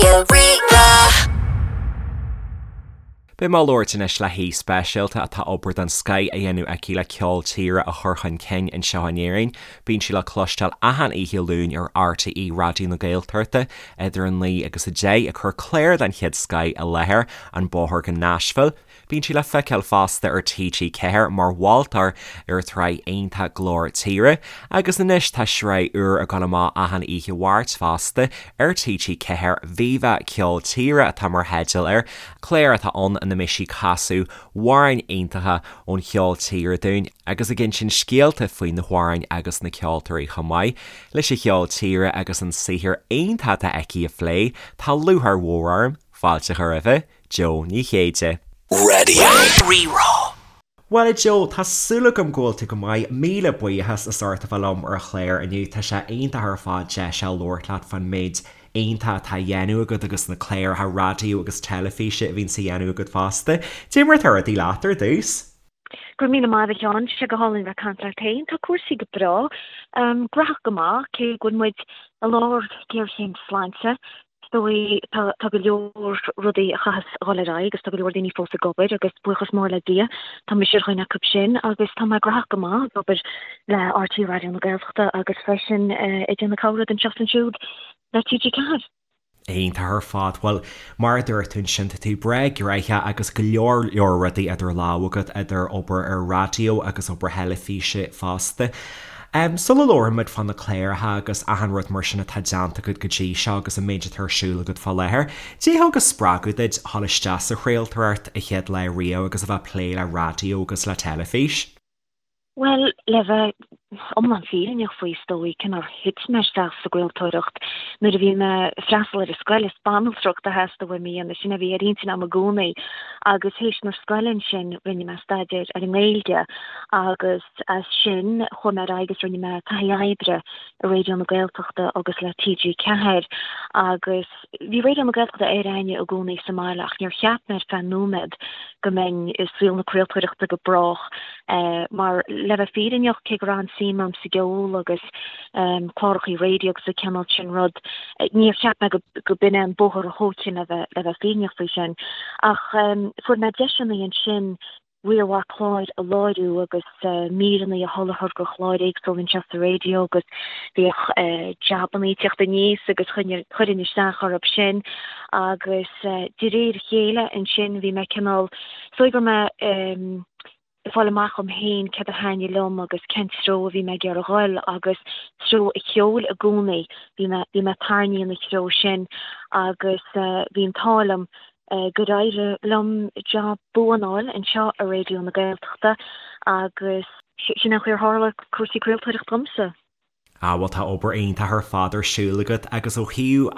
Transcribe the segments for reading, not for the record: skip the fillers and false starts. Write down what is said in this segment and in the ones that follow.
Raidió Rí-Rá. Beidh mé ag labhairt anois le haoi speisialta atá obair den scoith á dhéanamh aici le ceol tíre a chur chun cinn anseo in Éirinn. Bíonn sí le cloisteáil achan oíche Luain ar RTÉ Raidió na Gaeltachta idir 9 agus 10 ag cur clár den chéad scoith i láthair, An Bóthar go Nashville. Bíonn sí le feiceáil fosta ar TG4 mar mholtóir ar an tsraith iontach Glór Tíre agus anois tá sraith úr ag dul amach achan oíche Mháirt fosta ar TG4, Viva Ceol Tíre atá mar theideal air, clár atá ann ina mbeidh sí ag casadh amhráin iontacha ón cheol tíre dúinn agus ag insint scéalta faoi na hamhráin agus na ceoltóirí chomh maith leis an cheol tíre agus an saothar iontach atá aici a phlé. Tá lúcháir mhór orm fáilte a chur roimhe. Jó Ní Chéide. Raidió Rí-Rá. Bhuel a Jó, tá súil agam go bhfuil tú go maith. Míle buíochas as ucht a bheith liom ar an chlár inniu. Tá sé iontach ar fad deis a labhairt leat fán méid iontach atá á dhéanamh agat agus na cláracha raidió agus teilifíse a bhíonns á dhéanamh agat fosta. Cad é mar atá rudaí leat ar dtús? Go raibh míle maith agat a Sheáin, tá sé go hálainn bheith ag caint leat féin. Tá cúrsaí go breá. Graitheach go maith, cé go bhfuil muid i lár géarchéim sláinte. Is dóigh, tá, tá go leor rudaí a chaithfeas a dhul ar aghaidh agus tá go leor daoine fós ag obair agus buíochas mór le Dia, tá mise ar dhuine acu sin agus tá mé graitheach go maith ag obair le RTÉ Raidió na Gaeltachta agus freisin ag déanamh corrud anseo is ansiúd le TG4. Iontach ar fad. Bhuel, mar a dúirt tú ansin, tá tú breá gnoitheach agus go leor leor rudaí idir lámha agat, idir obair ar raidió agus obair theilifíse fosta. Sula labhraímid fá na cláracha agus achan rud mar sin atá déanta agat go dtí seo agus an méid atá ar siúl agat fá láthair, cad é a thug an spreagadh duit dhul isteach sa chraoltóireacht a chéad lá riamh agus a bheith ag plé le raidió agus le teilifís? Bhuel, le bheith iomlán fírinneach faoi, is dóigh, cé nár thit mé isteach sa gcraoltóireacht nuair a bhí mé ag freastal ar an scoil, is banaltracht a theastaigh uaim a dhéanamh, sin a bhí ar intinn agam i gcónaí. Agus théis na scoile ansin, rinne mé staidéar ar an nGaeilge agus as sin chuaigh mé ar aghaidh agus rinne mé taithí oibre i Raidió na Gaeltachta agus le TG4 agus bhí Raidió na Gaeltachta ar aithne i gcónaí sa mbaile ach níor cheap mé ar feadh nóiméad go mbeinn i saol na craoltóireachta go brách mar le bheith fírinneach cé go raibh an-suim agam sa gceol agus clárachaí raidió agus an cineál sin rud níor cheap mé go b'in é an bóthar a thógfainn le bheith le bheith fírinneach faoi sin ach fuair mé deiseanna ansin riar mhaith cláir a láithriú agus míreanna a sholáthar do chláir éagsúla anseo sa raidió agus bhíodh jabannaí ag teacht aníos agus chuirfinn isteach orthu sin agus de réir a chéile ansin bhí mé cineál, is dóigh go raibh mé ag fáil amach dhom féin céard a thaitnigh liom agus cén treo a bhí mé ag iarraidh a dhul agus treo an cheoil i gcónaí, bhí mé, bhí mé tarraingthe ina threo sin agus bhí an t-ádh liom gur éirigh liom jab buan a fháil anseo i Raidió na Gaeltachta agus sin an chaoi ar tharla cúrsaí craoltóireachta domsa. Ah bhuel tá obair iontach ar fad ar siúl agat agus ó thaobh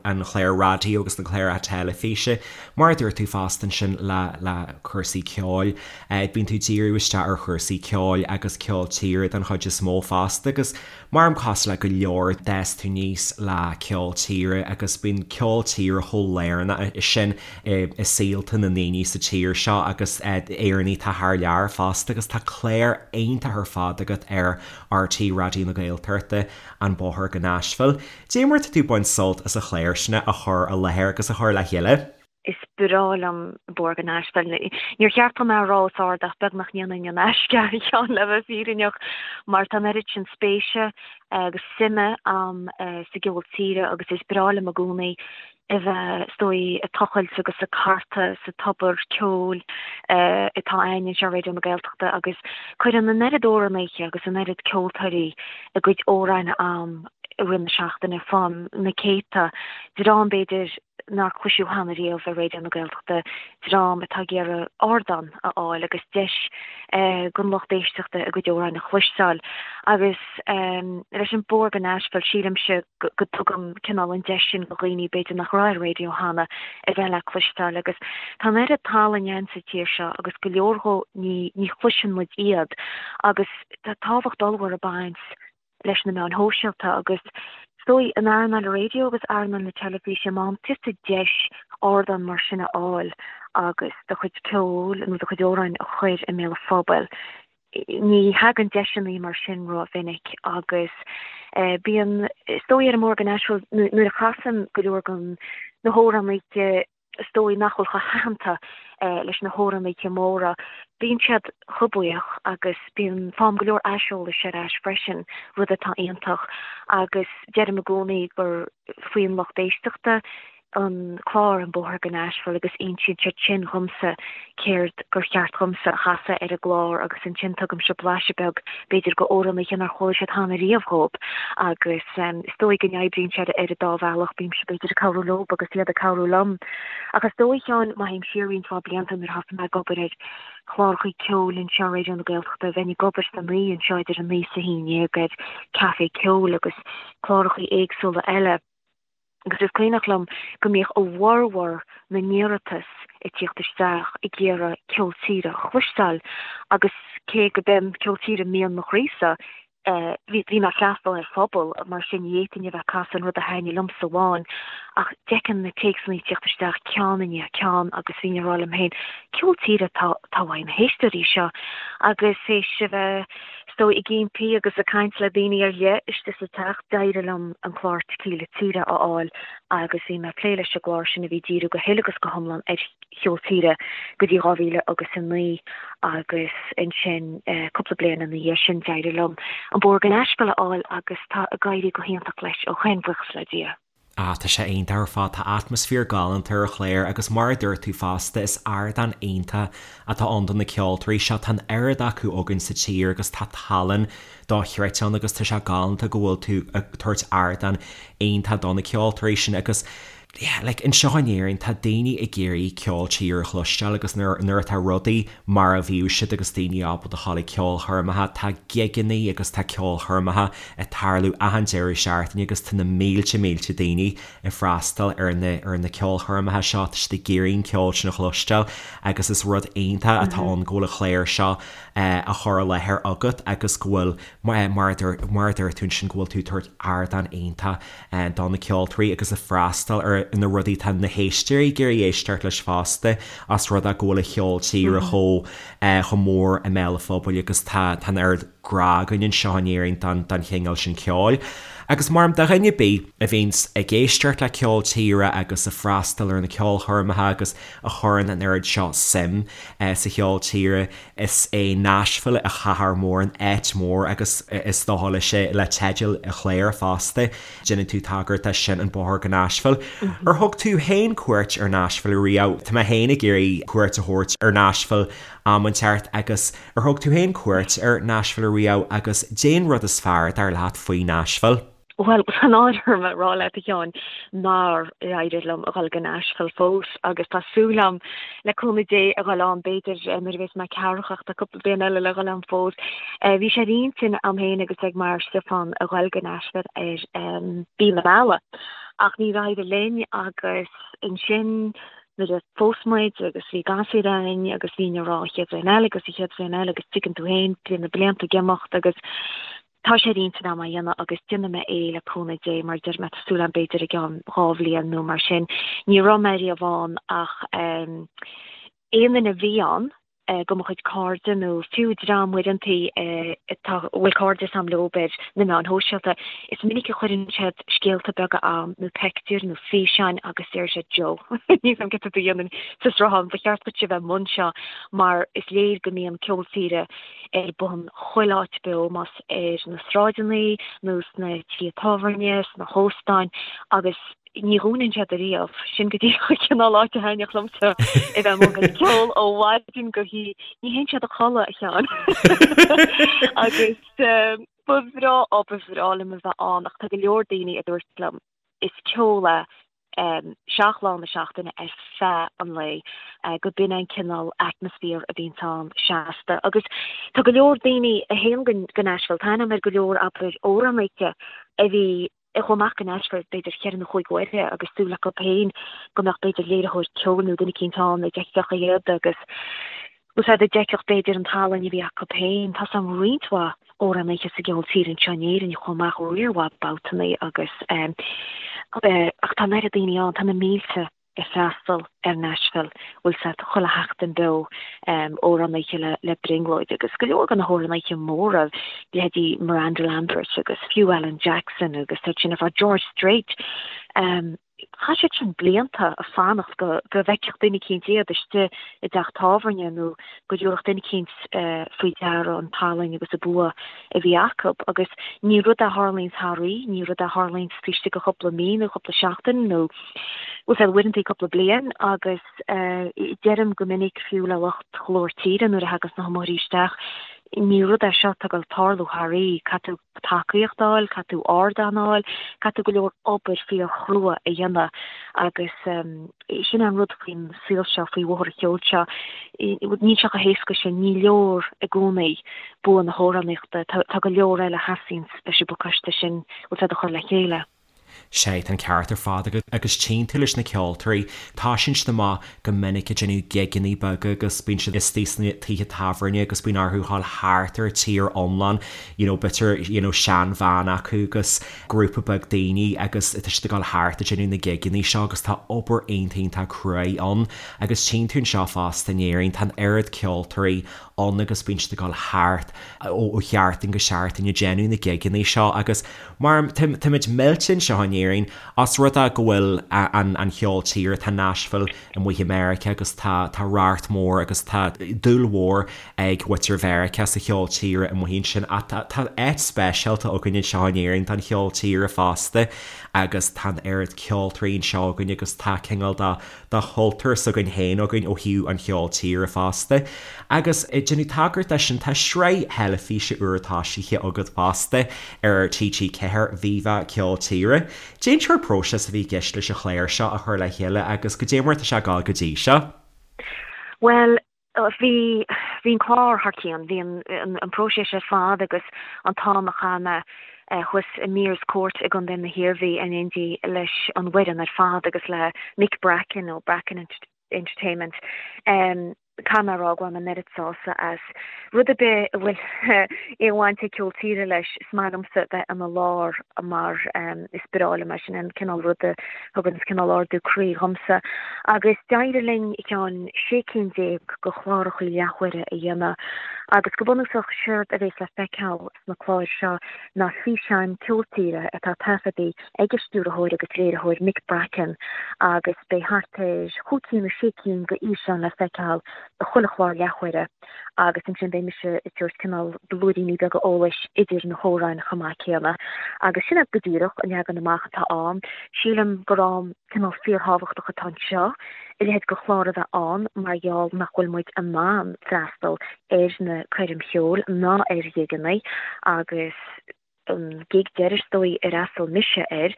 an chláir raidió agus na cláracha teilifíse, mar a dúirt tú fosta ansin le le cúrsaí ceoil, bíonn tú ag díriú isteach ar chúrsaí ceoil agus ceol tíre den chuid is mó fosta agus Mar cosúil le go leor, d'fhás tú aníos le ceol tíre agus bíonn ceol tíre chomh lárnach sin i saolta na ndaoine sa tír seo agus Éireannaigh atá thar lear fosta agus tá clár iontach ar fad agat ar RTÉ Raidió na Gaeltachta, An Bóthar go Nashville. Cad é mar atá tú ag baint sult as an chlár sin a chur i láthair agus a chur le chéile? Is breá liom Bóthar go Nashville. Níor cheart dom é a rá os ard ach beag nach ndéanfainn in aisce a Sheáin le bheith fírinneach mar tá an oiread sin spéise agus suime a'm sa gceol tíre agus is breá liom i gcónaí a bheith, is dóigh, ag tochailt agus ag cartadh sa tobar ceoil atá a'ainn anseo ar Raidió na Gaeltachta agus cuireann an oiread amhránaithe agus an oiread ceoltóirí a gcuid amhráin a'am i rith na seachtaine, faighim na céadta, dream b'fhéidir nár cloiseadh cheana riamh ar Raidió na Gaeltachta, dream atá ag iarraidh ardán a fháil agus deis don lucht éisteachta a gcuid amhráin a chloisteáil. Agus leis an Bóthar go Nashville, sílimse go dtugaim cineál an deis sin do dhaoine b'fhéidir nach raibh ar an raidió cheana a bheith le cloisteáil. Agus tá an oiread talainn ann sa tír seo agus go leor dhó ní chloiseann muid iad agus tá tábhacht ollmhór ag baint leis na meáin shóisialta agus is dóigh in earnáil an raidió agus earnáil na teilifíse, má fhaigheann tusa deis ardán mar sin a fháil agus do chuid ceoil nó do chuid amhráin a chur i mbéal an phobail, ní thagann deiseanna mar sin rómhinic agus bíonn, is dóigh ar an mBóthar go Nashville, nuair a chasaim go leor den. Na hamhránaithe is dóigh nach bhfuil chomh haitheanta leis na hamhránaithe móra, bíonn siad chomh buíoch agus bíonn, faighim go leor aiseolais ar ais freisin, rud atá iontach agus deirim i gcónaí gur faoin lucht éisteachta an clár An Bóthar go Nashville agus insíonn siad sin dhomsa céard gur cheart dhomsa a chasadh ar an gclár agus ansin tugaimse blaiseadh beag b'fhéidir go amhránaithe nár chuala siad cheana riamh dhóibh agus is dóigh go n-oibríonn sé ar an dá bhealach, bímse b'fhéidir ag cabhrú leob agus iad ag cabhrú liom. Ach is dóigh, a Sheáin, má théim siar roinnt mhaith blianta nuair a thosaigh mé ag obair ar chláracha ceoil anseo ar Raidió na Gaeltachta, bheinn ag obair san oíche anseo idir a naoi is a haon dhéag ar Café Ceoil agus cláracha éagsúla eile. Agus is cuimhneach liom go mbíodh a bhformhór na n-iarratas ag tíocht isteach ag iarraidh ceol tíre a chloisteáil agus cé go b'é ceol tíre mian mo chroísa, bhí mé ag freastal ar phobal, mar sin ní fhéadfainn a bheith ag casadh an rud a thaitnigh liomsa amháin. Ach d'fheicfinn na téacsanna ag tíocht isteach ceann i ndiaidh ceann agus bhínn ag rá liom féin, ceol tíre atá uaidh na héisteoirí seo. Agus théis a bheith Is dóigh, ag impí agus ag caint le daoine ar leith istigh sa teach, d'éirigh liom an clár Tequila Tíre a fháil agus bhí mé ag plé leis an gclár sin a bhí ag díriú go huile agus go hiomlán ar cheol tíre go dtí 2009 agus ansin cúpla bliain ina dhiaidh sin d'éirigh liom An Bóthar go Nashville a fháil agus tá ag éirí go hiontach leis ó shin, buíochas le Dia. Ah, tá sé iontach ar fad, tá atmaisféar galánta ar an chlár agus mar a dúirt tú fosta, is ardán iontach atá ann do na ceoltóirí seo, tá an oiread acu againn sa tír agus tá tallann dochreidte ann agus tá sé galánta go bhfuil tú ag tabhairt ardán iontach do na ceoltóirí sin agus yeah, like anseo in Éirinn tá daoine ag iarraidh ceol tíre a chloisteáil agus nuair, nuair atá rudaí mar a bhíodh siad agus daoine ábalta a ghabháil ag ceolchoirmeacha, tá gigeanna agus tá ceolchoirmeacha ag tarlú achan deireadh seachtaine agus tá na mílte mílte daoine ag freastal ar na ar na ceolchoirmeacha seo, tá siad ag iarraidh an ceol sin a chloisteáil agus is rud iontach atá ann go bhfuil an clár seo á chur i láthair agat agus go bhfuil mar a dúirt mar a dúirt tú ansin go bhfuil tú ag tabhairt ardán iontach do na ceoltóirí agus ag freastal ar na rudaí atá na héisteoirí ag iarraidh éisteacht leis fosta os rud é go bhfuil an cheol tíre chomh chomh mór i mbéal an phobail agus tá tá an oiread grá againn anseo in Éirinn don don chineál sin ceoil. Agus mar do dhuine ar bith a bhíonns ag éisteacht le ceol tíre agus ag freastal ar na ceolchoirmeacha agus a chuireann an oiread seo suim sa cheol tíre, is é Nashville an chathair mhór, an áit mhór agus is dócha leis le teideal an chláir fosta, déanann tú tagairt dó sin, an bóthar go Nashville. Ar thug tú féin cuairt ar Nashville riamh? Tá mé féin ag iarraidh cuairt a thabhairt ar Nashville am inteacht agus Ar thug tú féin cuairt ar Nashville riamh agus caidé an rud is fearr, dar leat, faoi Nashville? Bhuel, tá náire orm a rá leat, a Sheáin, nár éirigh liom a dhul go Nashville fós agus tá súil agam, le cúnamh Dé, a dhul ann, b'fhéidir, nuair a bheas mé ceathracha ach tá cúpla bliain eile le dhul ann fós. Bhí sé ar intinn a'm féin agus ag m'fhear Stiofán a dhul go Nashville ar mhí na meala ach níor éirigh linn agus ansin nuair a phós muid agus bhí gasúir a'inn agus bhínn ag rá an chéad bhliain eile agus an chéad bhliain eile agus tuigeann tú féin, bíonn na blianta ag imeacht agus tá sé ar intinn a'm é a dhéanamh agus déanfaidh mé é le cúnamh Dé mar deir mé tá súil a'm b'fhéidir i gceann dhá bhliain nó mar sin. Ní raibh mé riamh ann ach aon duine a bhí ann de mo chuid cairde nó fiú dream uaireantaí atá, a bhfuil cairdeas a'm leob ar na meáin shóisialta, is minic a chuireann siad scéalta beaga a'm nó peictiúir nó físeáin agus deir siad Joe, níl 's a'm céard tá tú a dhéanamh sa sruthán, ba cheart duit a bheith i mbun seo mar is léir go mbíonn ceol tíre ar bun chuile áit beo, más ar na sráideanna nó sna tithe tábhairne, sna hóstáin agus. Ní dhúnann siad ariamh. Sin go díreach an cineál áit a thaitneodh liomsa a bheith amuigh ag ceol ó mhaidin go hoíche. Ní théann siad a chodladh, a Sheáin. Agus ba bhreá, ó ba bhreá liom a bheith ann ach tá go leor daoine a dúirt liom is ceol é seacht lá na seachtaine ar feadh an lae, go b'in é an cineál atmaisféar a bhíonns ann seasta. Agus tá go leor daoine a théann go Nashville, tá aithne agam ar go leor, abair, amhránaithe a bhí a chuaigh amach go Nashville b'fhéidir cheithre nó chúig uaire agus súil acu féin go mbeadh b'fhéidir léiritheoir ceoil nó duine eicínt ann a d'fheicfeadh iad agus úsáid a d'fheicfeadh b'fhéidir an tallann a bhí acu féin. Tá 's a'm roinnt mhaith amhránaithe sa gceol tíre anseo in Éirinn a chuaigh amach riar mhaith babhtannaí agus ach tá an oiread daoine ann, tá na mílte. ag freastal ar Nashville, bhfuil 's a'd, chuile sheachtain beo, amhránaithe le brionglóid agus go leor de na hamhránaithe móra, leithéidí Miranda Lambert agus fiú Alan Jackson agus iad sin ar fad, George Strait. Chaith siad sin blianta ag fanacht go go bhfeicfeadh duine eicínt iad istigh i dteach tábhairne nó go dtabharfadh duine eicínt faoi deara an tallann agus an bua a bhí acu. Agus ní rud é a tharlaíonns thar oíche, ní rud é a tharlaíonns taobh istigh de chúpla mí nó cúpla seachtain nó bhfuil fhios a'd uaireanta cúpla bliain agus deirim go minic fiú le lucht Ghlór Tíre nuair a thaganns na hiomaitheoirí isteach, ní rud é seo atá ag dul tarlú thar oíche, caithfidh tú tacaíocht a fháil, caithfidh tú ardán a fháil, caithfidh tú go leor obair fíorchrua a dhéanamh agus sin é an rud faoin saol seo, faoi bhóthar an cheoil seo, níl sé chomh héasca sin, ní leor i gcónaí bua na hamhránaíochta, tá go leor eile a theastaíonns leis an bpacáiste sin, bhfuil fhios a'd, a chur le chéile. Sea, tá an ceart ar fad agat agus tchíonn tú leis na ceoltóirí, tosaíonn siad amach go minic ag déanamh gigeanna beaga agus bíonn siad istigh sna tithe tábhairne agus bíonn orthu dhul thart ar an tír iomlán, you know, b'fhéidir, you know, seanbhean acu agus grúpa beag daoine agus tá siad ag dul thart ag déanamh na gigeanna seo agus tá obair iontach iontach cruaidh ann agus tchíonn tú anseo fosta in Éirinn, tá an oiread ceoltóirí ann agus bíonn siad ag dul thart ó sheachtain go seachtain ag déanamh na gigeanna seo agus Mar táimid millte anseo in Éirinn os rud é go bhfuil an cheol tíre, tá Nashville amuigh i Meiriceá agus tá tá racht mór agus tá dúil mhór ag muintir Mheiriceá sa cheol tíre amuigh ansin ach tá tá áit speisialta againn anseo in Éirinn don cheol tíre fosta agus tá an oiread ceoltóirí anseo againn agus tá cineál de de chultúr s'againn féin againn ó thaobh an cheoil tíre fosta. Agus ag déanamh tagairt dó sin, tá sraith theilifíse úr tosaithe agat fosta ar TG4, Viva Ceol Tíre. Cén sórt próiseas a bhí i gceist leis an chlár seo a chur le chéile agus goidé mar atá sé ag gabháil go dtí seo? Bhuel, bhí, bhí an clár thar cionn. Bhí an, an próiseas ar fad agus an t-am a chaith mé thuas i Meares Court i gContae na hIarmhí in éindí leis an bhfoireann ar fad agus le Mick Bracken ó Bracken Entertainment. Caithfidh mé a rá go bhfuil mé an oiread sásta as. Rud ar bith a bhfuil aon bhaint ag ceol tíre leis, is maith liomsa bheith ina lár mar is breá liom é, sin an cineál rud a thugann cineál ardú croí dhomsa. Agus d'éirigh linn ceann 16 cinn de chlárachaí leathuaire a dhéanamh agus go bunúsach séard a bhéas le feiceáil sna cláir seo ná físeáin ceol tíre atá taifeadta ag an stiúrthóir agus léiritheoir Mick Bracken agus beidh thart ar chúig cinn nó sé cinn de fhíseáin le feiceáil i chuile chlár leathuaire agus ansin beidh mise ag tabhairt cineál blúiríní beaga eolais idir na hamhráin chomh maith céanna. Agus sin é go díreach an leagan amach atá ann. Sílim gur am cineál fíorthábhachtach atá anseo a leithéid de chlár a bheith ann mar gheall nach bhfuil muid in ann freastal ar na coirm cheoil ná ar ghigeanna agus an gig deiridh is dóigh ar fhreastail mise air,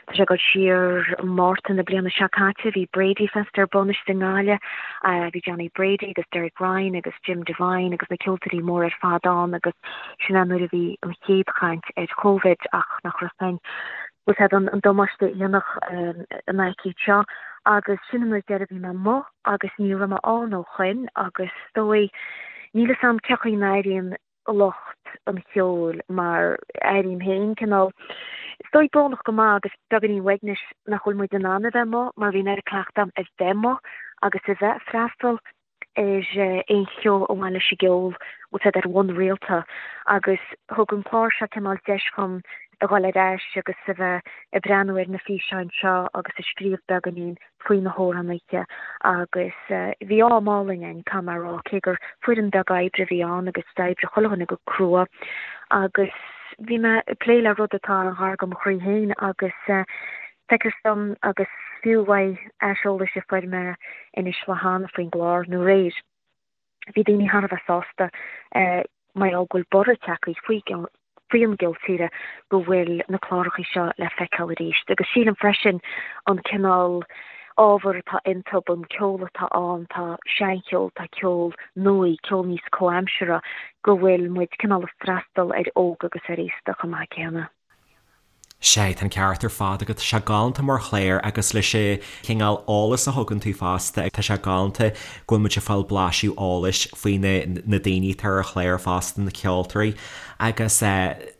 tá sé ag dul siar Márta na bliana seo caite, bhí Brady Fest ar bun istigh i nGaillimh, bhí Johnny Brady agus Derek Ryan agus Jim Devine agus na ceoltóirí móra ar fad ann agus sin é nuair a bhí an chéad chaint ar Covid ach nach raibh féin bhfuil fhios a'd an damáiste a dhéanfadh an aicíd seo agus sin an uair deiridh a bhí mé amuigh agus ní raibh mé ann ó shoin agus is dóigh níl fhios a'm cé chaoi a n-airíonn lucht an cheoil mar airím féin cineál, is dóigh, brónach go maith agus beagáinín uaignis nach bhfuil muid in ann a bheith amuigh mar bhí an oiread cleachta agam a bheith amuigh agus a bheith ag freastal ar aon cheo a bhain leis an gceol, bhfuil fhios a'd, ar bhonn rialta agus thug an clár seo cineál deis dhom a dhul ar ais agus a bheith ag breathnú ar na físeáin seo agus ag scríobh beagáinín faoi na hamhránaithe agus bhí am álainn againn, caithfidh mé a rá, cé gur foireann beag oibre a bhí ann agus d'oibrigh chuile dhuine go crua agus bhí mé ag plé le rud atá an-ghar do mo chroí féin agus feictear dom agus fiú uaidh aiseolais a fuair mé anois le hAnna faoin gclár nó aréir. Bhí daoine thar a bheith sásta mar gheall go bhfuil borradh tagtha faoi faoi an gceol tíre go bhfuil na clárachaí seo le feiceáil arís. Agus sílim freisin an cineál ábhar atá iontu, an ceol atá ann, tá seancheol, tá ceol nua, ceol níos comhaimseartha, go bhfuil muid cineál ag freastal ar óg agus ar aosta chomh maith céanna. Sea, tá an ceart ar fad agat. Tá sé galánta mar chlár agus leis an chineál eolas a thugann tú fosta, tá sé galánta go bhfuil muid ag fáil blaiseadh eolais faoi na na daoine atá ar an chlár fosta, na ceoltóirí. Agus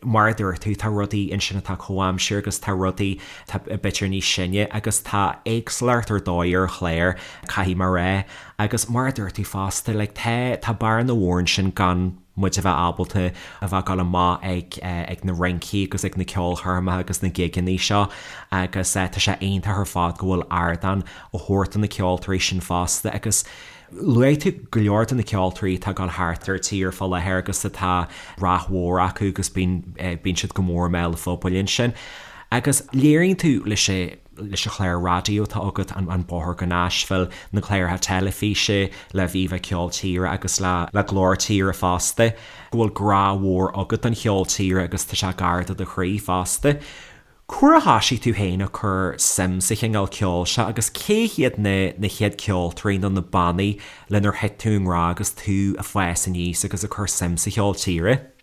mar a dúirt tú, tá rudaí ansin atá comhaimseartha agus tá rudaí atá b'fhéidir níos sine agus tá éagsúlacht ar dóigh ar an chlár, caithfidh mé a rá. Agus mar a dúirt tú fosta, like tá tá bearna mhór ansin gan. muid a bheith ábalta a bheith ag dul amach ag ag na rincí agus ag na ceolchoirmeacha agus na gigeanna seo agus tá sé iontach ar fad go bhfuil ardán á thabhairt do na ceoltóirí sin fosta agus luaigh tú go leor de na ceoltóirí atá ag dul thart ar tír fá láthair agus atá rath mhór acu agus bíonn bíonn siad go mór i mbéal an phobail ansin agus léiríonn tú leis leis an chlár raidió atá agat, An Bóthar go Nashville, na cláracha teilifíse le Viva Ceol Tíre agus le Glór Tíre fosta, go bhfuil grá mhór agat don cheol tíre agus tá sé gar do do chroí fosta. Cá huair a thoisigh tú féin ag cur suim sa chineál ceoil seo agus cé hiad na na chéad ceoltóirí nó na bannaí lenar thit tú i ngrá agus tú ag fás aníos agus ag cur suim sa cheol tíre?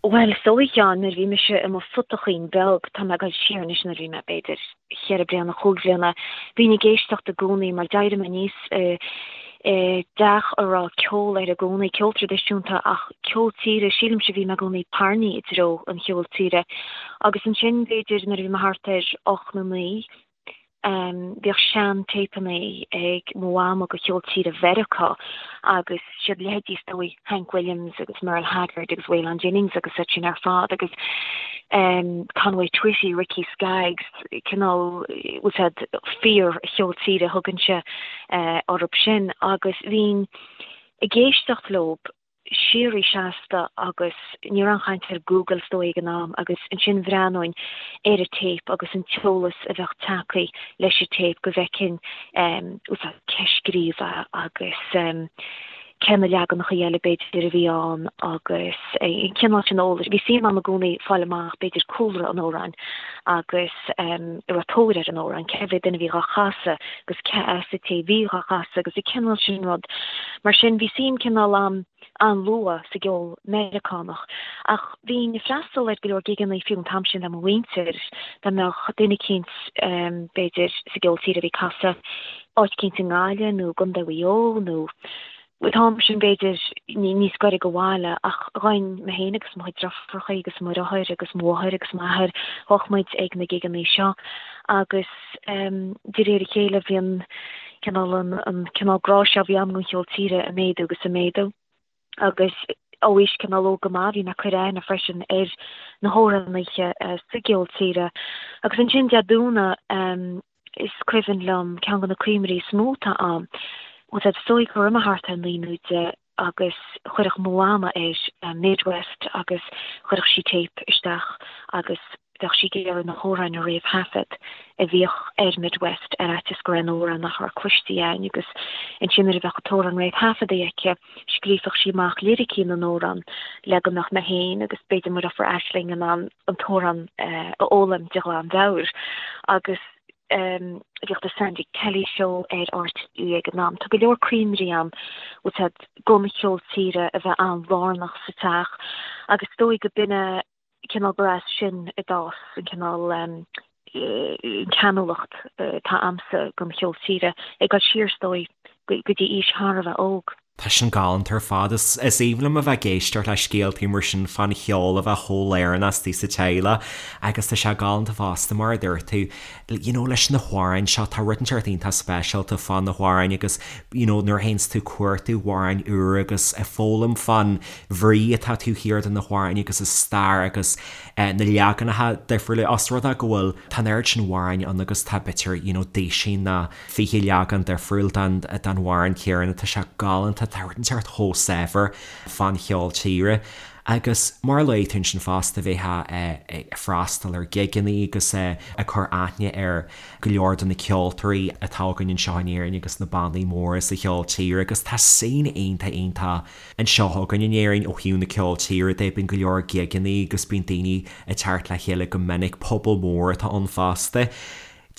Bhuel, is dóigh, a Sheáin, nuair a bhí mise i mo phutachín beag, tá mé ag dul siar anois nuair a bhí mé, b'fhéidir, cheithre bliana, chúig bhliana, bhínn ag éisteacht i gcónaí mar d'éirigh mé aníos i dteach a raibh ceol air i gcónaí, ceol traidisiúnta ach ceol tíre, sílimse bhí mé i gcónaí tarraingthe i dtreo an cheoil tíre. Agus ansin, b'fhéidir, nuair a bhí mé thart ar ocht nó naoi, Bhíodh sean-téipeanna ag mo mhama de cheol tíre Mheiriceá agus siad leithéidí is dóigh Hank Williams agus Merle Haggard agus Waylon Jennings agus iad sin ar fad agus Conway Twitty, Ricky Skaggs, cineál, bhfuil 's a'd, fíor-cheol tíre a thugainnse orthu sin agus bhínn ag éisteacht leob. síoraí seasta agus ní raibh aon chaint ar Google is dóigh ag an am agus ansin bhreathnóinn ar an téip agus an t-eolas a bheadh tagtha leis an téip go bhfeicfinn bhfuil 's a'd cé a scríobh é agus cé na leaganacha eile b'fhéidir a bhí ann agus an cineál sin eolais. Bhí suim agam i gcónaí fáil amach b'fhéidir cúlra an amhráin agus an raibh tóir ar an amhrán, cé mhéad duine a bhí dhá chasadh agus cé as an té a bhí dhá chasadh agus an cineál sin rud. Mar sin, bhí suim cineál a'm an-luath sa gceol Meiriceánach. Ach bhínn ag freastal ar go leor gigeanna fiú an t-am sin le mo mhuintir, dá mbeadh duine eicínt b'fhéidir sa gceol tíre a bhí ag casadh áit eicínt i nGaillimh nó i gContae Mhaigh Eo nó an t-am sin b'fhéidir níos gaire do bhaile ach ghabhainn mé féin agus mo chuid deirfiúracha agus mo dheartháir agus mo mháthair agus m'athair, ghabhadh muid ag na gigeanna seo agus de réir a chéile bhí an cineál an cineál grá seo a bhí agam don cheol tíre ag méadú agus ag méadú agus ó aois cineál óg go maith bhí mé ag cur aithne freisin ar na hamhránaithe sa gceol tíre agus ansin Dé Domhnaigh Is cuimhin liom ceann de na cuimhní is mó atá a'm, bhfuil 's a'd, is dóigh go raibh mé thart ar naoi nó deich agus chuirfeadh mo mhama ar Midwest agus chuirfeadh sí téip isteach agus bheadh sí ag iarraidh na hamhráin a réamhthaifead a bhíodh ar Midwest ar fhaitíos go raibh aon amhrán nach raibh cloiste a'inn agus ansin nuair a bheadh an t-amhrán réamhthaifeadta aici scríobhadh sí amach liricí na n-amhrán le go mbeadh mé féin agus b'fhéidir mo dheirfiúr Aisling in ann an t-amhrán a fhoghlaim de ghlanmheabhair agus bhíodh The Sandy Kelly Show ar RTÉ ag an am. Tá go leor cuimhní a'm bhfuil 's a'd don cheol tíre a bheith an-lárnach sa teach agus is dóigh go b'in é cineál gur as sin a d'fhás an cineál an ceanúlacht atá a'msa don cheol tíre, ag dul siar is dóigh go dtí aois thar a bheith óg. Tá sin galánta ar fad. Is aoibhinn liom a bheith ag éisteacht le scéaltaí mar sin fán cheol a bheith chomh lárnach istigh sa teaghlach agus tá sé galánta fosta mar a dúirt tú, you know leis na hamhráin seo, tá rud inteacht iontach speisialta fá na hamhráin agus you know nuair a théanns tú ag cuartú amhráin úra agus ag foghlaim fán bhrí atá taobh thiar de na hamhráin agus a stair agus na leaganacha difriúla os rud é go bhfuil tá an oiread sin amhráin ann agus tá b'fhéidir you know duisín nó 20 leagan difriúil den amhrán céanna tá sé galánta tá rud inteacht chomh saibhir fán cheol tíre agus mar a luaigh tú ansin fosta bheifeá ag freastal ar ghigeanna agus ag cur aithne ar go leor de na ceoltóirí atá againn anseo in Éirinn agus na bannaí móra sa cheol tíre agus tá scene iontach iontach anseo againn in Éirinn ó thaobh na ceol tíre de, bíonn go leor gigeanna agus bíonn daoine ag teacht le chéile go minic, pobal mór atá ann fosta.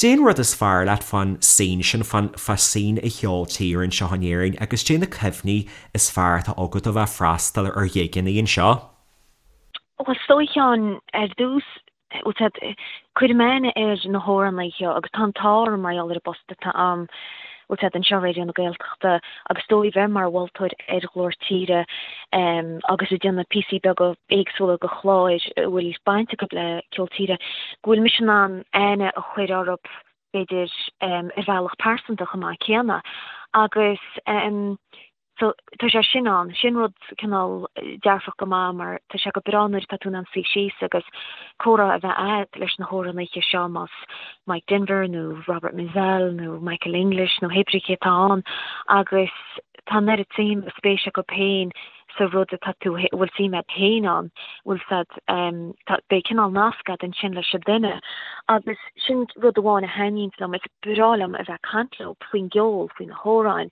Cad é an rud is fearr leat fán scene sin, fán fá scene an cheoil tíre anseo in Éirinn agus cad é na cuimhní is fearr atá agat ó bheith ag freastal ar ghigeanna anseo? Bhuel, is dóigh, a Sheáin, ar dtús, bhfuil 's a'd, cuirim aithne ar na hamhránaithe agus tá an t-ádh orm mar gheall ar an bpost atá a'm, bhfuil 's a'd, anseo i Raidió na Gaeltachta agus is dóigh bheith mar mholtóir ar Ghlór Tíre agus ag déanamh píosaí beaga éagsúla de chláir a bhfuil baint acu le ceol tíre, go bhfuil mise in ann aithne a chur orthu b'fhéidir ar bhealach pearsanta chomh maith céanna agus. So tá sé sin ann, sin rud cineál dearfach go maith mar tá sé go breá nuair atá tú in ann suí síos agus comhrá a bheith a'd leis na hamhránaithe seo más Mike Denver nó Robert Mizzell nó Michael English nó hé brí cé atá ann agus tá an oiread suim agus spéis acu féin sa rud atá tú, a bhfuil suim a'd féin ann, bhfuil 's a'd, tá, beidh cineál nasc a'd ansin leis an duine agus sin rud amháin a thaitníonns liom, is breá liom a bheith ag caint leo faoin gceol, faoi na hamhráin,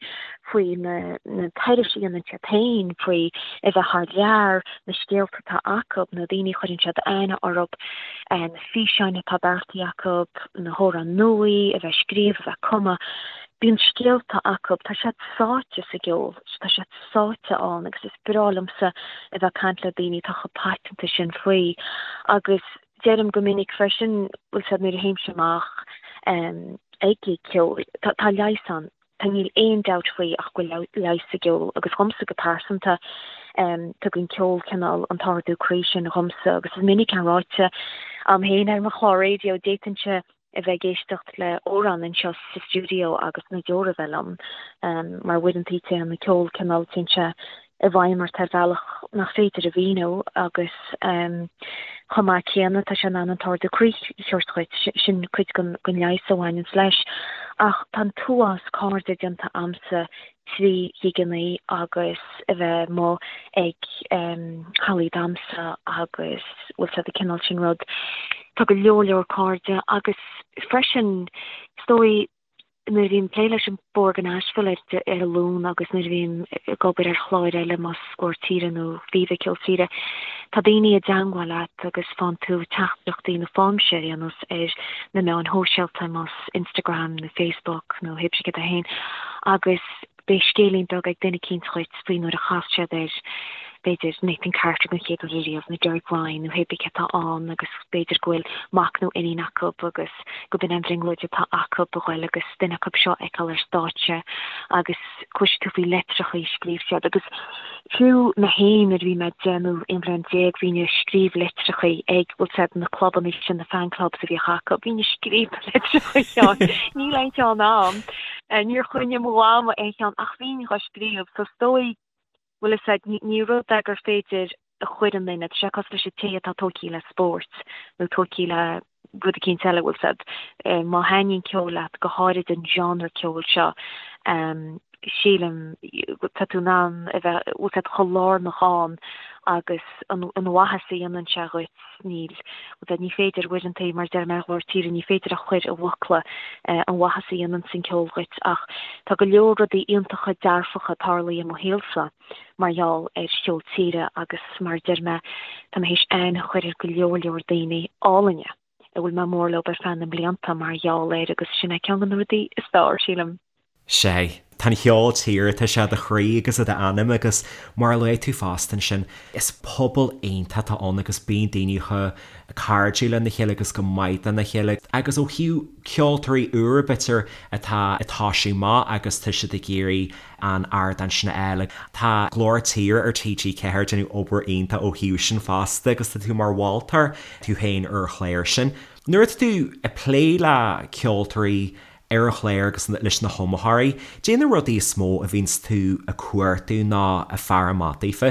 faoi na, na turais a dhéanann siad féin, faoi a bheith thar lear, na scéalta atá acu, na daoine a chuireann siad aithne orthu, na físeáin atá beartaithe acu, na hamhráin nua a bheith ag scríobh, a bheith ag cumadh, bíonn scéalta acu, tá siad sáite sa gceol, tá siad. sáite ann agus is breá liomsa a bheith ag caint le daoine atá chomh paiteanta sin faoi agus deirim go minic freisin, bhfuil 's a'd nuair a théimse amach ag gig ceoil, tá tá leigheas ann, tá níl aon dabht faoi ach go bhfuil leigheas sa gceol agus dhomsa go pearsanta tugann ceol cineál an t-ardú croí sin dhomsa agus is minic é ráite a'm féin ar mo chlár raidió, d'fhéadfainnse a bheith ag éisteacht le amhrán anseo sa stiúideo agus na deora a bheith liom, mar uaireanta téann an ceol cineál, téann sé i bhfeidhm ort ar bhealach nach féidir a mhíniú agus chomh maith céanna tá sé in ann an t-ardú croí a thabhairt dhuit, sin cuid den leigheas a bhaineanns leis. Ach tá an t-uafás cairde déanta a'msa 3 ghigeannaí agus a bheith amuigh ag hallaí damhsa agus bhfuil 's a'd an cineál sin rud. Tá go leor leor cairde agus freisin is dóigh nuair a bhím ag plé leis an Bord i Nashville ar ar an Luan agus nuair a bhím ag obair ar chláir eile más Glór Tíre nó Viva Ceol Tíre, tá daoine i dteangmháil leat agus faigheann tú teachtaireachtaí nó faighimse ar aon nós ar na meáin shóisialta más Instagram nó Facebook nó hé brí céard é féin agus beidh scéilín beag ag duine eicínt dhuit faoi nuair a chas siad ar, b'fhéidir, Nathan Carter den chéad uair ariamh nó Derek Ryan nó hé brí cé atá ann agus b'fhéidir go bhfuil mac nó iníon acu agus go b'in an bhrionglóid atá acu a ghoil agus duine acu seo a fheiceáil ar stáitse agus cloisfidh tú faoi leitreacha a scríobh siad agus fiú mé féin nuair a bhí mé 10 nó 11 bhliain bhínn ag scríobh litreacha ag, bhfuil 's a'd, na clubanna sin, na fan clubs a bhíodh acu, bhínn ag scríobh na litreacha Sheáin, níl aon cheann a'm, níor choinnigh mo mhama aon cheann ach bhínn dhá scríobh so is dóigh, bhfuil 'fhios a'd, ní rud é gur féidir a chur i nduine, tá sé cosúil leis an té atá tógtha le spórt nó tógtha le rud eicínt eile, bhfuil 's a'd, má thaitníonn ceol leat, go háirid an genre ceoil seo, sílim, tá tú in ann a bheith, bhfuil 's a'd, chomh lárnach ann agus an mhaitheas a dhéanann sé dhuit, níl, bhfuil 's a'd, ní féidir uaireanta, mar a deir mé ar Ghlór Tíre, ní féidir a chur i bhfocla an mhaitheas a dhéanann an ceol dhuit ach tá go leor rudaí iontacha dearfacha tarlaithe i mo shaolsa. mar gheall ar cheol tíre agus mar a deir mé, tá mé théis aithne a chur ar go leor leor daoine álainne a bhfuil mé mór leo ar feadh na mblianta mar gheall air agus sin é ceann de na rudaí is fearr, sílim. Sea. Tá an cheol tíre, tá sé i do chroí agus i d'anam agus mar a luaigh tú fosta ansin, is pobal iontach atá ann agus bíonn daoine chomh cairdiúil lena chéile agus chomh maith lena chéile agus ó thaobh ceoltóirí úra b'fhéidir atá ag toisiú amach agus tá siad ag iarraidh an ardán sin a fháil. Tá Glór Tíre ar TG4 ag déanamh obair iontach ó thaobh sin fosta agus tá tú mar mholtóir tú féin ar an chlár sin. Nuair atá tú ag plé le ceoltóirí ar an chlár agus leis na hiomaitheoirí, caidé na rudaí is mó a bhíonns tú ag cuartú nó ag faire amach daofa?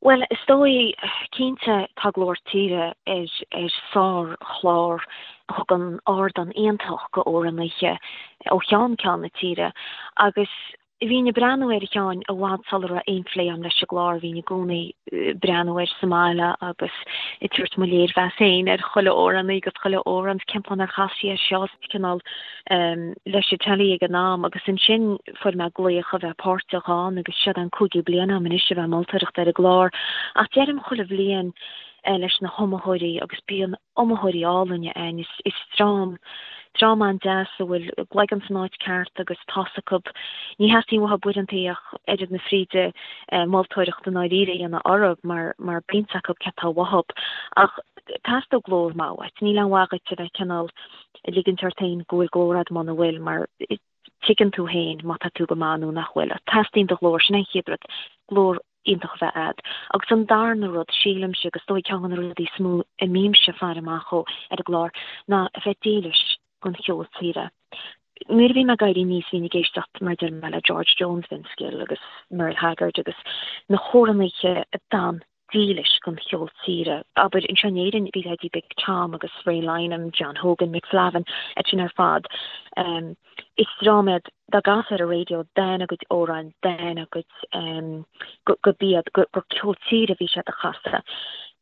Bhuel, is dóigh, cinnte, tá Glór Tíre ar ar sár-chlár a thugann ardán iontach go amhránaithe ó cheann ceann na tíre agus bhínn ag breathnú air a Sheáin i bhfad sula raibh aon phlé agam leis an gclár, bhínn i gcónaí ag breathnú air sa mbaile agus ag tabhairt mo léirmheas féin ar chuile amhránaí agus chuile amhrán, cén fáth nár chas sí air seo, cineál leis an teilí ag an am agus ansin fuair mé glaoch a bheith páirteach ann agus seo an cúigiú bliain agam anois a bheith ag moltóireacht ar an gclár ach deirim chuile bhliain leis na hiomaitheoirí agus bíonn iomaitheoirí álainne ann is is dream dream an-deas a bhfuil a gcloigeann san áit ceart agus tá's acu ní theastaíonn uathu uaireanta ach oiread na fríde moltóireacht i ndáiríre a dhéanamh orthu mar mar bíonn 's acu cé tá uathu ach teastóidh glór maith uait níl aon mhaith dhuit a bheith cineál ag ligint ort féin go bhfuil glór agat muna bhfuil, mar tuigeann tú féin má tá tú go maith nó nach bhfuil. Teastaíonn do ghlór, sin an chéad rud, glór iontach a bheith agat. Agus an darna rud, sílimse, agus is dóigh ceann de na rudaí is mó a mbímse ag faire amach dhó ar an gclár, ná a bheith dílis don cheol tíre. Nuair a bhí mé ag éirí aníos bhínn ag éisteacht mar a deir mé le George Jones, Vince Gill agus Merle Haggard agus na hamhránaithe a d'fhan dílis don cheol tíre. Abair, anseo in Éirinn bhí leithéidí Big Tom agus Ray Lynam, John Hogan, Mick Flavin, iad sin ar fad. Is dream iad dá gcasfá ar an raidió d'fhan a gcuid amhráin, d'fhan a gcuid, gurb iad, gur ceol tíre a bhí siad a chasadh.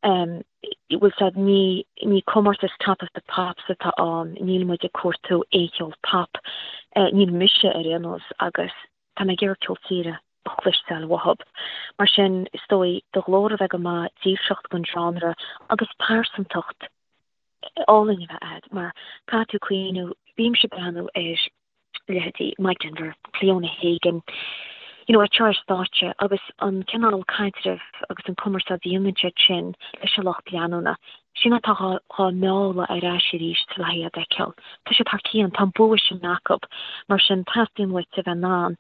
Bhfuil 's a'd, ní, ní comórtas Top of the Pops atá ann, níl muid ag cuartú aon cheol pop, níl mise ar aon nós, agus tá mé ag iarraidh ceol tíre a chloisteáil uathub. Mar sin, is dóigh, do ghlór a bheith go maith, dílseacht don genre agus pearsantacht álainn a bheith a'd, mar caithfidh tú cuimhniú, bímse ag breathnú ar leithéidí Mike Denver, Cliona Hagan, you know, ag seo ar stáitse agus an cineál caidrimh agus an cumarsáid a dhéanann siad sin leis an lucht leanúna, sin atá dhá mealladh ar ais arís le iad a fheiceáil. Tá siad thar cionn, tá an bua sin acu. Mar sin, teastaíonn uait a bheith in ann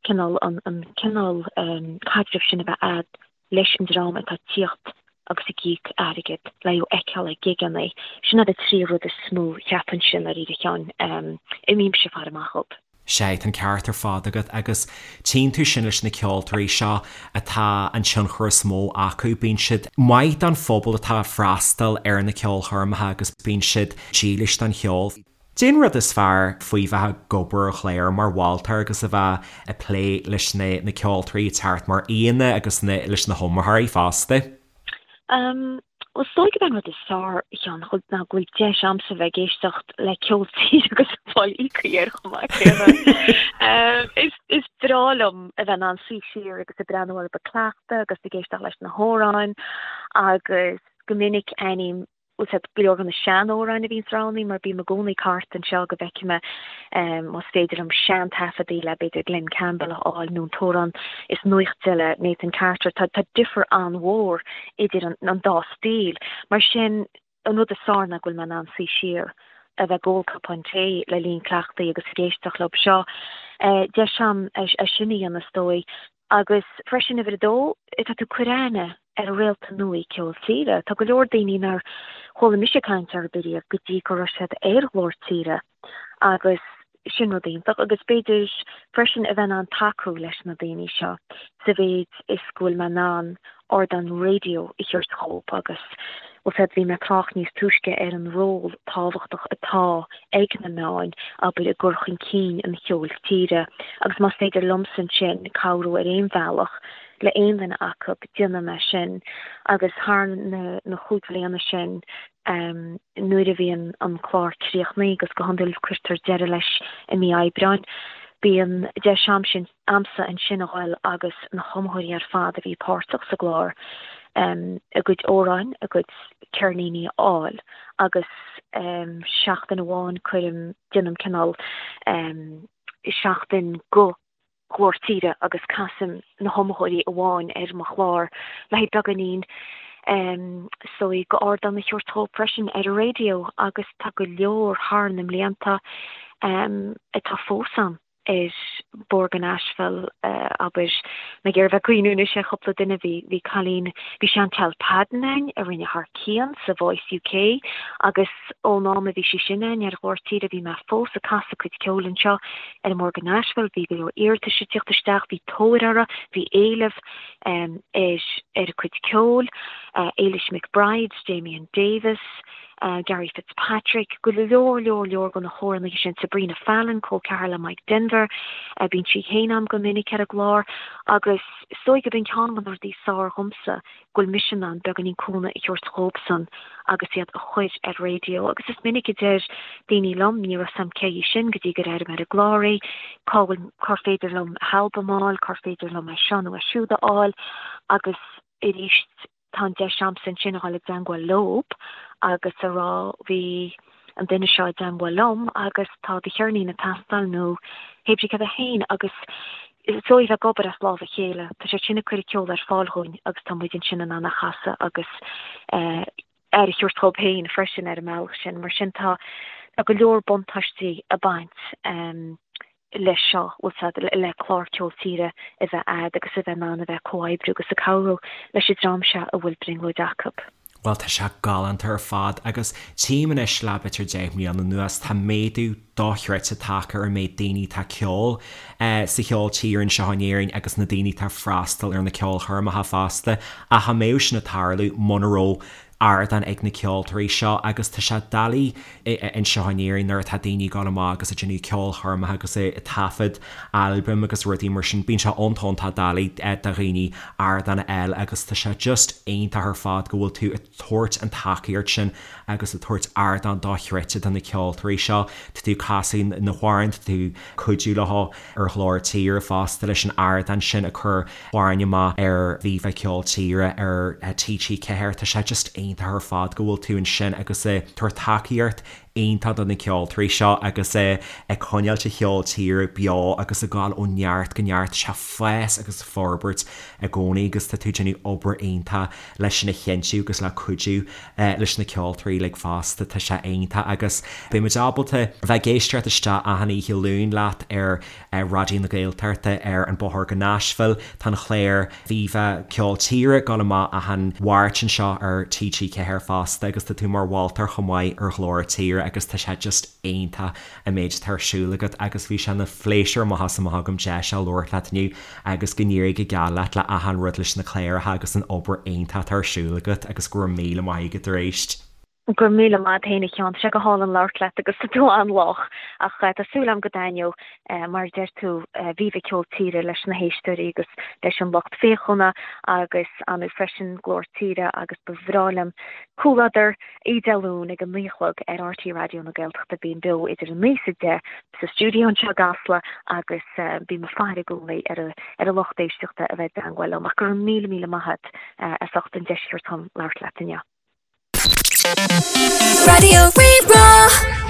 cineál an an cineál caidrimh sin a bheith a'd leis an dream atá ag tíocht agus ag íoc airgead le thú a fheiceáil ag gigeanna. Sin iad na trí rud is mó cheapfainnse i ndáiríre a Sheáin, a mbímse ag faire amach dhób. Sea, tá an ceart ar fad agat agus tchíonn tú sin leis na ceoltóirí seo atá an tionchar is mó acu, bíonn siad maith don phobal atá ag freastal ar na ceolchoirmeacha agus bíonn siad dílis don cheol. Cén rud is fearr faoi bheith ag obair ar chlár mar mholtóir agus a bheith ag plé leis na na ceoltóirí ag teacht mar aíonna agus na leis na hiomaitheoirí fosta? Bhuel, is dóigh gurb é an rud is fearr, a Sheáin, ná go bhfuil deis a'msa bheith ag éisteacht le ceol tíre agus ag fáil íoctha air chomh maith céanna. Is is breá liom a bheith in ann suí siar agus ag breathnú orthu ag cleachtadh agus ag éisteacht leis na hamhráin agus go minic aithním bhfuil 's a'd, go leor de na sean-amhráin a bhíonns roghnaithe mar bím i gcónaí ag thart anseo go bhfeicfidh mé más féidir liom sean-taifeadaí le b'fhéidir Glen Campbell a fháil nó an t-amhrán is nuachta le Nathan Carter. Tá tá difear an-mhór idir an an dá stíl. Mar sin, an rud is fearr ná go bhfuil mé in ann suí siar, a bheith ag ól cupán tae le linn cleachtaidh agus ag éisteacht leo seo. Deis a'm é sin a dhéanamh is dóigh. Agus freisin, uimhir a dó, tá tú ag cur aithne ar réalta nua ceol tíre. Tá go leor daoine nár chuala mise caint orthu riamh go dtí go raibh siad ar Ghlór Tíre agus sin rud iontach. Agus b'fhéidir freisin a bheith in ann tacú leis na daoine seo sa mhéid is go bhfuil mé in ann ardán raidió a thabhairt dhóibh agus bhfuil 's a'd, bhí mé ag trácht níos túisce ar an ról tábhachtach atá ag na meáin, abair, i gcur chun cinn an cheoil tíre agus más féidir liomsa ansin cabhrú ar aon bhealach le aon duine acu, déanfaidh mé sin agus thar na na chúig bhliana sin nuair a bhíonn an clár críochnaithe agus go hiondúil cuirtear deireadh leis i mí Aibreáin, bíonn deis a'msa a'msa ansin a ghoil agus na hiomaitheoirí ar fad a bhí páirteach sa gclár a gcuid amhráin, a gcuid ceirníní a fháil agus seachtain amháin cuirim, déanaim cineál seachtain go Ghlór Tíre agus casaim na hiomaitheoirí amháin ar mo chlár le haghaidh beagáinín is dóigh go ardán a thabhairt dhóibh freisin ar an raidió agus tá go leor thar na mblianta atá fós ann. ar Bord go Nashville, abair, mé ag iarraidh bheith ag cuimhniú anois ar chúpla duine, bhí, bhí cailín, bhí Chantel Padden ann a rinne thar cionn sa Voice UK agus ón am a bhí sí sin ann ar Ghlór Tíre bhí mé fós ag casadh a cuid ceoil anseo ar an mBord go Nashville, bhí go leor iarratais ag tíocht isteach, bhí tóir uirthi, bhí éileamh ar, ar a cuid ceoil, Éilis McBride, Damien Davis, Gary Fitzpatrick, go leor leor leor de na hamhránaithe sin, Sabrina Fallon, col ceathar le Mike Denver, bíonn sí féin a'm go minic ar an gclár agus is dóigh gurb in ceann de na rudaí is fearr dhomsa go bhfuil mise in ann beagáinín cúnamh a thabhairt dhóibhsan agus iad a chur ar raidió agus is minic a deir daoine liom ní raibh 's a'm cé hí sin go dtí gur airigh mé ar an gclár í, cá bhfuil, cár féidir liom a halbam a fháil, cár féidir liom é seo nó é siúd a fháil agus arís tá an deis a'msa ansin a dhul i dteangmháil leob agus a rá bhí an duine seo i dteangmháil liom agus tá do cheirnín ag teastáil nó hé brí cad é féin agus is dóigh bheith ag obair as lámh a chéile. Tá siad sin ag cur an ceol ar fáil dhúinn agus tá muid ansin in ann a chasadh agus aire a thabhairt dhóibh féin freisin ar an mbealach sin. Mar sin tá tá go leor buntáistí ag baint leis seo, bhfuil 's a'd, le clár ceol tíre a bheith a'd agus a bheith in ann a bheith ag comhoibriú agus ag cabhrú leis an dream seo a bhfuil brionglóid acu. Bhuel, tá sé galánta ar fad agus tchím anois le b'fhéidir 10 mbliana anuas, tá méadú dochreidte tagtha ar an méid daoine atá ag ceol sa cheol tíre anseo in Éirinn agus na daoine atá ag freastal ar na ceolchoirmeacha fosta. Ach cha mbeadh sin ag tarlú muna raibh ardán ag na ceoltóirí seo agus tá sé doiligh anseo in Éirinn nuair atá daoine ag dul amach agus ag déanamh ceolchoirmeacha agus ag taifead albaim agus rudaí mar sin, bíonn sé iontach iontach doiligh do dhaoine ardán a fháil agus tá sé just iontach ar fad go bhfuil tú ag tabhairt an tacaíocht sin agus ag tabhairt ardán dochreidte do na ceoltóirí seo. Tá tú ag casadh na hamhráin, tá tú ag cuidiú leo ar Ghlór Tíre fosta leis an ardán sin ag cur amhráin amach ar Viva Ceol Tíre ar TG4. Tá sé just iontach ar fad go bhfuil tú ansin agus ag tabhairt tacaíocht iontach do na ceoltóirí seo agus ag coinneáilt an cheol tíre beo agus ag gabháil ó neart go neart. Tá sé ag fás agus ag forbairt i gcónaí agus tá tú ag déanamh obair iontach leis sin a chinntiú agus le cuidiú leis na ceoltóirí uilig fosta. Tá sé iontach agus beidh muid ábalta bheith ag éisteacht isteach achan oíche Luain leat ar Raidió na Gaeltachta ar An Bóthar go Nashville. Tá an chlár Viva Ceol Tíre ag dul amach achan Mháirt anseo ar TG4 fosta agus tá tú mar mholtóir chomh maith ar Ghlór Tíre agus tá sé just iontach an méid atá ar siúl agat agus bhí sé ina phléisiúr amach is amach agam deis a labhairt leat inniu agus go n-éirí go geal leat le achan rud leis na cláracha agus an obair iontach atá ar siúl agat agus go raibh míle maith agat arís. Go raibh míle maith agat féin a Sheáin, tá sé go hálainn labhairt leat agus tá tú an-lách ach tá súil agam go dtaitneoidh mar a deir tú Viva Ceol Tíre leis na héisteoirí agus leis an lucht féachana agus ar ndóigh freisin Glór Tíre agus ba bhreá liom comhluadar Oíche Dé Luain ag a 9 a chlog ar RTÉ Raidió na Gaeltachta. Bím beo idir 9 is 10 sa stiúideo anseo i gCasla agus bím ag faire i gcónaí ar an lucht éisteachta a bheith i dteangmháil liom. Ach go raibh míle míle maith agat as ucht an deis a thabhairt dom labhairt leat inniu. Raidió Rí-Rá.